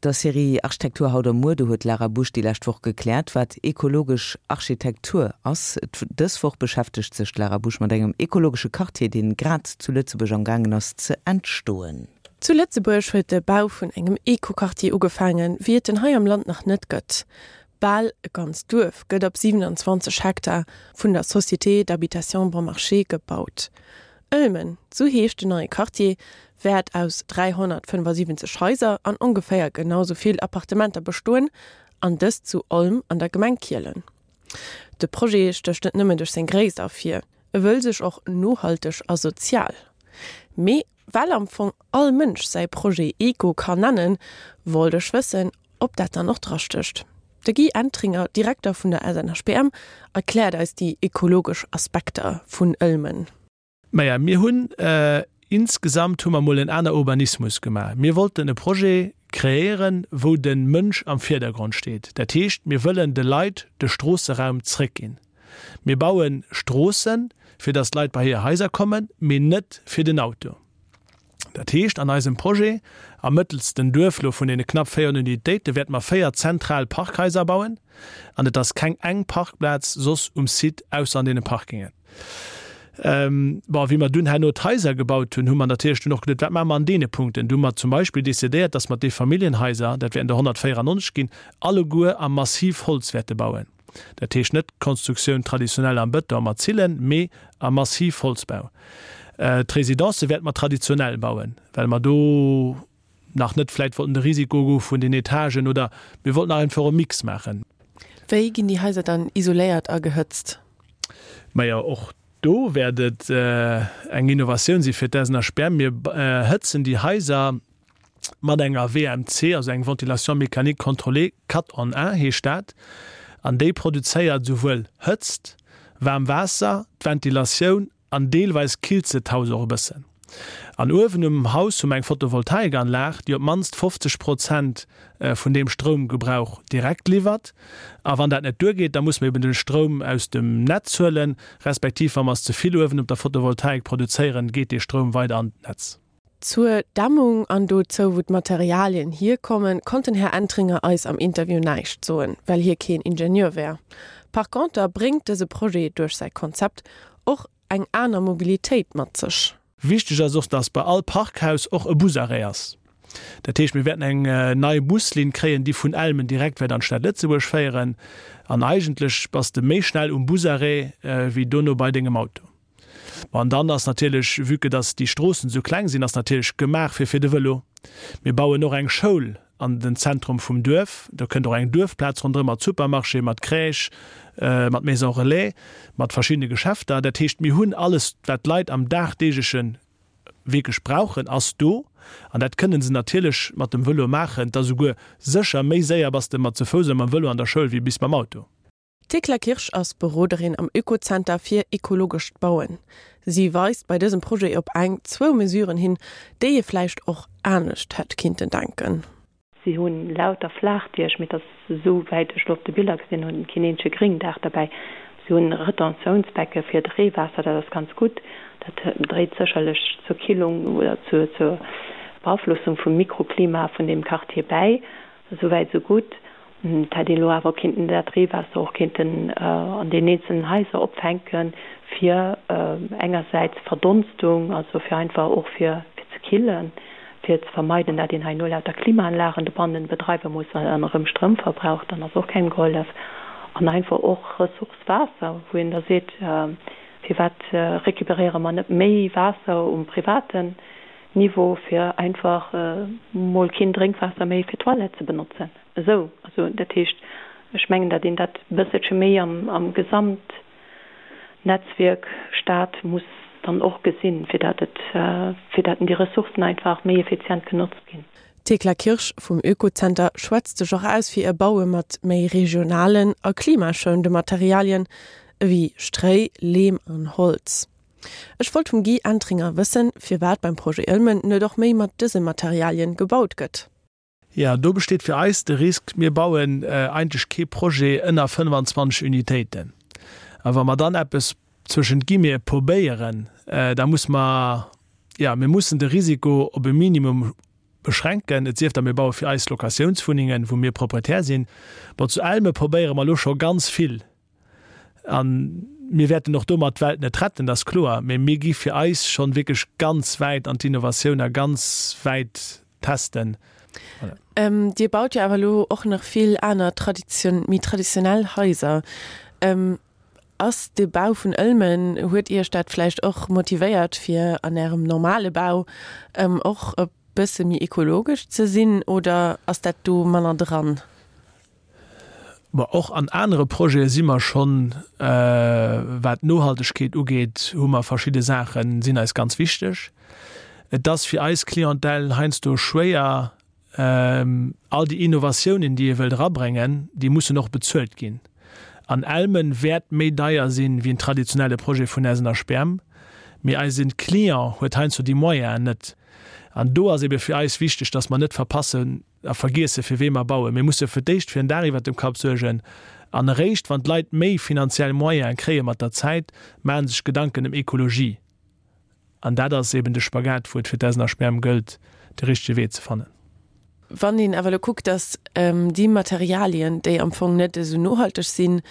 Der Serie Architektur haut a muer, do huet d'Lara Busch déi lescht Woch gekläert, wat ekologesch Architektur ass. Dës Woch beschäftegt sech d'Lara Busch mat engem ekologesche Quartier, deen grad zu Lëtzebuerg am gaangen ass ze entstoen. Zu Lëtzebuerg huet de Bau vun engem Eco-Quartier ugefaangen, wéi et en hei am Land nach net gëtt. Bal e ganzt Duerf gëtt op 27 Hektar vun der Société d'habitation Bon Marché gebaut. Ëlmen, sou heescht den neie Quartier, wäert aus 375 Haiser an ongeféier genau sou vill Appartementer bestoen, an dëst zu Olm an der Gemeng Kielen. De Projet stécht net nëmmen duerch seng Gréisst ervir, e wëll sech och nohalteg a sozial. Mee well am Fong all Mënsch säi Projet Eco kann nennen, wollt ech wëssen, ob dat dann och drastécht. De Guy Entringer, Direkter vun der SNHBM, erkläert eis déi ekologesch Aspekter vun Ëlmen. Maja, mir hunn insgesamt hu mer mol en aner Urbanismus gemaach. Mir wollten e Projet kreéieren, wou de Mënsch am Virdergrond steet. Dat heescht, mir wëllen de Leit de Stroosseraum zréckginn. Mir baue Stroossen, fir datt d'Leit bei hir Haiser kommen, mee net fir den Auto. Dat heescht, an eisem Projet am mëttelsten Duerf lo vun deene knapp 400 Unitéite wäerte mer 4 zentral Parkhaiser bauen an et ass keng eng Parkplaz soss um Site ausser an deene Parkingen. Bon, wéi mer dunn herno d'Haiser gebaut hunn, hu mer natierlech dunn och geduet, wat maache mer an deene Punkten? Du hu mer zum Beispill decidéiert, dass mer d'Eefamilljenhaiser, dat wäerten der 194 ginn, alleguer am Massivholz wäerte bauen. Dat heescht net d'Konstruktioun traditionell am Bëton mat Zillen, mee am Massivholzbau. D'Residencë wäerte mer traditionell bauen, well mer do nach net vläicht wollten de Risiko goe vun den Etagen oder mir wollten nach einfach e Mix maachen. Wéi ginn déi Haiser dann isoléiert a gehëtzt? Majo, och do wäert et eng Innovatioun si fir d'SNHBM. Mir hëtzen déi Haiser mat enger WMC, also eng Ventilation mécanique contrôlée, quatre en un heescht dat, an déi produzéiert esouwuel Hëtzt, waarm Waasser, d'Ventilatioun an deelweis killt se d'Haus och e bëssen. An uewen um Haus hu mer eng Photovoltaikanlag, déi op d'mannst 50 Prozent vun deem Stroumgebrauch direkt liwwert. A wann dat net duergeet, da musse mer eben de Stroum aus dem Netz huelen, respektiv wa mer es ze vill uewen op der Photovoltaik produzéieren, geet dee Stroum weider an d'Netz. Zur Dämmung an dozou, wou d'Materialien hierkommen, konnt den Här Entringer eis am Interview näischt soen, well hie keen Ingenieur wär. Par conter bréngt dëse Projet duerch säi Konzept och eng aner Mobilitéit mat sech. Wichteg ass och, dass bei all Parkhaus och e Busarrêt ass. Dat heescht, mir wäerten eng nei Buslinn kréien, déi vun Elmen direkt wäert an d'Stad Lëtzebuerg féieren. An eigentlech bass de méi schnell um Busarrêt wéi dono bei dengem Auto. Bon, an dann ass natierlech, vue que dass déi Stroossen esou kleng sinn, ass natierlech gemaach fir fir de Vëlo. Mir bauen och eng Schoul an den Zentrum vum Duerf. Do kënnt och eng Duerfplaz ronderëm mat Supermarché, mat Crèche, mat Maison relais, mat verschiddene Geschäfter. Dat heescht, mir hunn alles, wat d'Leit am dagdeegleche wierklech brauchen, ass do. An dat kënnen se natierlech mat dem Vëlo maachen. Et ass esouguer sécher, méi séier bass de mat ze Fouss a mam Vëlo an der Schoul wéi bis mam Auto. D'Thekla Kirsch ass Beroderin am Oekozenter fir ekologescht Bauen. Si weist bei dësem Projet op eng, zwou Mesuren hin, déi ee vläicht och anescht hätt kinnten denken. Si hu lauter Flaachdiech, mee et ass, esou wäit ech elo op de Biller gesinn hunn, keen eenzege Gréngdaach derbäi. Si hunn Retentiounsbecke fir d'Reewaasser, dat ass ganz gutt. Dat dréit sécherlech zur Killung oder zur Beaflossung vum Mikroklima vun deem Quartier bäi. Esou wäit esou gutt. Et hätt een elo awer kinnten dat Reewaasser och kinnten an den eenzelnen Haiser opfänken, fir engersäits Verdonstung, also fir einfach och fir ze killen, fir ze vermeiden, dat een hei no lauter Klimaanlagen dobannen bedreiwe muss an erëm Stroum verbraucht, dann ass och kengem gehollef. An einfach och Ressource Waasser, wou een da seet, firwat récupéréiere mer net méi Waasser um privaten Niveau, fir einfach mol keen Drénkwaasser méi fir d'Toilette ze benotzen. Esou, also dat heescht, ech mengen, datt een dat e bësselche méi am Gesamtnetzwierk Stad muss dann och gesinn, fir datt et, fir datt déi Ressourcen einfach méi effizient genotzt ginn. D'Thekla Kirsch vum Oekozenter schwätzt sech och aus fir e Baue mat méi regionalen a klimaschounende Materialien ewéi Stréi, Leem an Holz. Ech wollt vum Guy Entringer wëssen, firwat beim Projet Ëlmen net och méi mat dëse Materialien gebaut gëtt. Jo, do besteet fir eis de Risk, mir bauen eigentlech kee Projet ënner 25 Unitéiten. A wa mer dann eppes zwëschent Guillemete probéieren, da muss mer, jo, mir mussen de Risiko op e Minimum. beschränken, et sief da mir baue fir eis Locatiounswunnengen, wou mir Proprietär sinn. Bon, zu Elme probéiere mer elo scho ganz vill a mir wäerten och domat d'Welt net retten, dat ass kloer, mä mir gi fir eis schonn wierklech ganz wäit an d'Innovatioun a ganz wäit testen. Voilà. Dir baut jo awer elo och nach vill aner tradition, méi traditionell Haiser. Ass de Bau vun Ëlmen, huet Iech dat vläicht och motivéiert fir an Ärem normale Bau och e bësse méi ekologesch ze sinn oder ass dat do manner dran? Bon, och an anere Projete si mer schonn, wat d'Nohaltegkeet ugeet, hu mer verschidde Saachen, sinn eis ganz wichteg. Et ass fir eis Clientèle heiansdo schwéier, All déi Innovatiounen, déi ee wëllt erabréngen, déi mussen och bezuelt ginn. An Elmen wäert méi deier sinn, wéi en traditionelle Projet vun SNHBM. Mee eise Client huet heiansdo déi Moyenen net. An do ass ebe fir eis wichteg, dass mer net verpassen a vergiessen, fir wee mer bauen. Mir musse fir d'éischt fir en Daach iwwert dem Kapp suergen. An eréischt wann d'Leit méi finanziell Moyene kréie mat der Zäit, maache sech Gedanken ëm Ekologie. An dat ass eben de Spagat, wou et fir d'SNHBM gëllt, de richtege Wee ze fannen. Wann een awer elo kuckt, datt déi Materialien, déi am Fong net esou nohalteg sinn,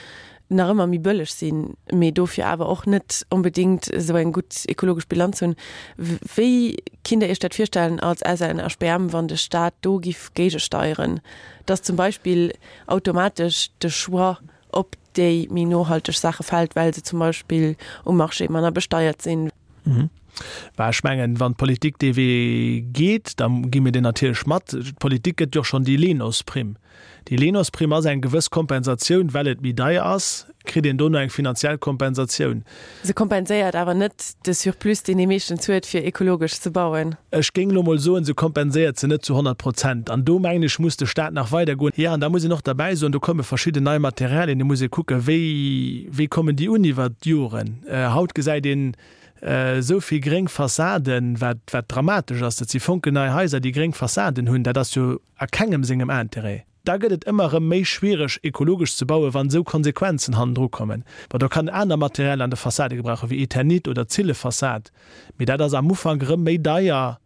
nach ëmmer méi bëlleg sinn, mee dofir awer och net onbedéngt esou eng gutt ekologesch Bilanz hunn, wéi kinnt Der Iech dat virstellen als SNHBM, wann de Staat do giff géigesteieren, datt zum Beispill automatesch de Choix op déi méi nohalteg Saache fält, well se zum Beispill um Marché manner besteiert sinn. Bah, ech mengen, wann d'Politik dee Wee geet, da gi mir deen natierlech mat. D'Politik gëtt jo och schonn déi LENOZ-Primm. Déi LENOZ-Primm ass eng gewëss Kompensatioun, well et méi deier ass, kritt een dono eng finanziell Kompensatioun. Se kompenséiert awer net de Surplus, deen ee meeschtens huet, fir ekologesch ze bauen. Ech géing elo mol soen, se kompenséiert se net zu 100 Prozent. An do, mengen ech, muss de Stat nach weidergoen. Jo, an da muss een och derbäi soen, do komme verschidden nei Materialien, do muss ee kucken, wéi, wéi kommen déi un iwwert d'Joren. Haut gesäit een esou vill gréng Fassaden, wat, wat dramatesch ass. Dat si fonkelnei Haiser, déi gréng Fassaden hunn. Dat ass jo a kengem sengem Intérêt. Da gëtt et ëmmer erëm méi schwiereg, ekologesch ze bauen, wann esou Konsequenzen hannendru kommen. Bon, do kann aner Material an de Fassade gebrauchen, wéi Eternit oder Zillefassad, mee dat ass am Ufank erëm méi deier,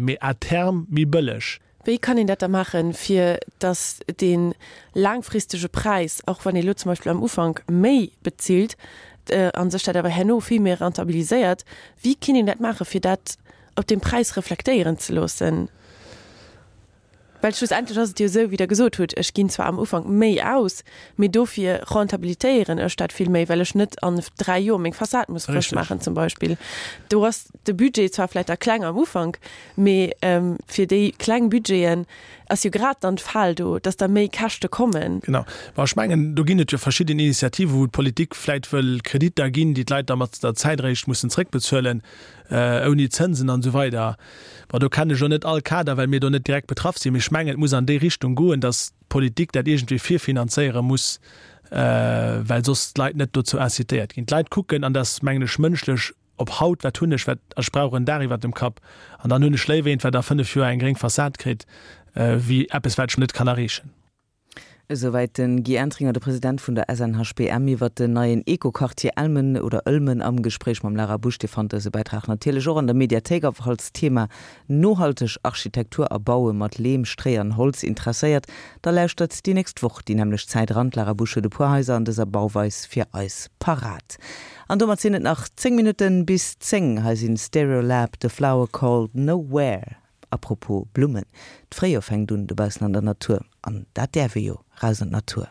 mee à terme méi bëlleg. Wéi kann een dat da maachen, fir datt dee laangfristege Präis, och wann ee lo zum Beispill am Ufank méi bezilt, a sech dat awer herno vill méi rentabiliséiert, wéi kinnt een dat maachen, fir dat op dem Präis reflektéieren ze loossen? Well schlussendlech ass et jo esou, wéi Der gesot hutt, ech ginn zwar am Ufank méi aus, mee dofir rentabilitéieren ech dat vill méi, well ech net an 3 Joer meng Fassad muss frësch maachen zum Beispill. Do ass de Budget zwar vläicht da kleng am Ufank, mee fir déi kleng Budgeten ass jo grad dann d'Fal do, dass da méi Käschte kommen. Genau. Bon, ech mengen, do ginn et jo verschidden Initiativen, wou d'Politik vläicht wëll Kreditter ginn, déi d'Leit da mat der Zäit eréischt mussen zréckbezuelen, ouni Zënsen an esou weider. Bon, do kennen ech elo net all Kader, well mir do net direkt betraff sinn, mee ech mengen, et muss an déi Richtung goen, dass d'Politik dat iergendwéi virfinanzéiere muss, well soss d'Leit net dozou incitéiert ginn. D'Leit kucken, an dat ass, mengen ech, mënschlech, op haut, wat hunn ech, wat, ech brauch en Daach iwwert dem Kapp, an dann hunn ech léiwer eent, wat a 5 Joer eng gréng Fassad kritt, wéi eppes, wat ech net kann erreechen. Esouwäit den Guy Entringer, de President vun der SNHBM iwwert den neien Eco-Quartier Elmen oder Ëlmen am Gespréich mam Lara Busch. Dir fannt dëse Bäitrag natierlech och an der Mediathéik a falls d'Thema nohalteg Architektur a Baue mat Leem, Stréi an Holz interesséiert, da lauschtert déi nächst Woch déi nämmlecht Zäit eran. D'Lara Busch huet e puer Haiser an dëser Bauweis fir eis parat. An domat sinn et nach 10 Minutten bis 10. Hei sinn Stereolab, The Flower Called Nowhere. A propos Blummen, d'Fréijoer fänkt un dobaussen an der Natur, an dat däerf ee jo, raus an d'Natur.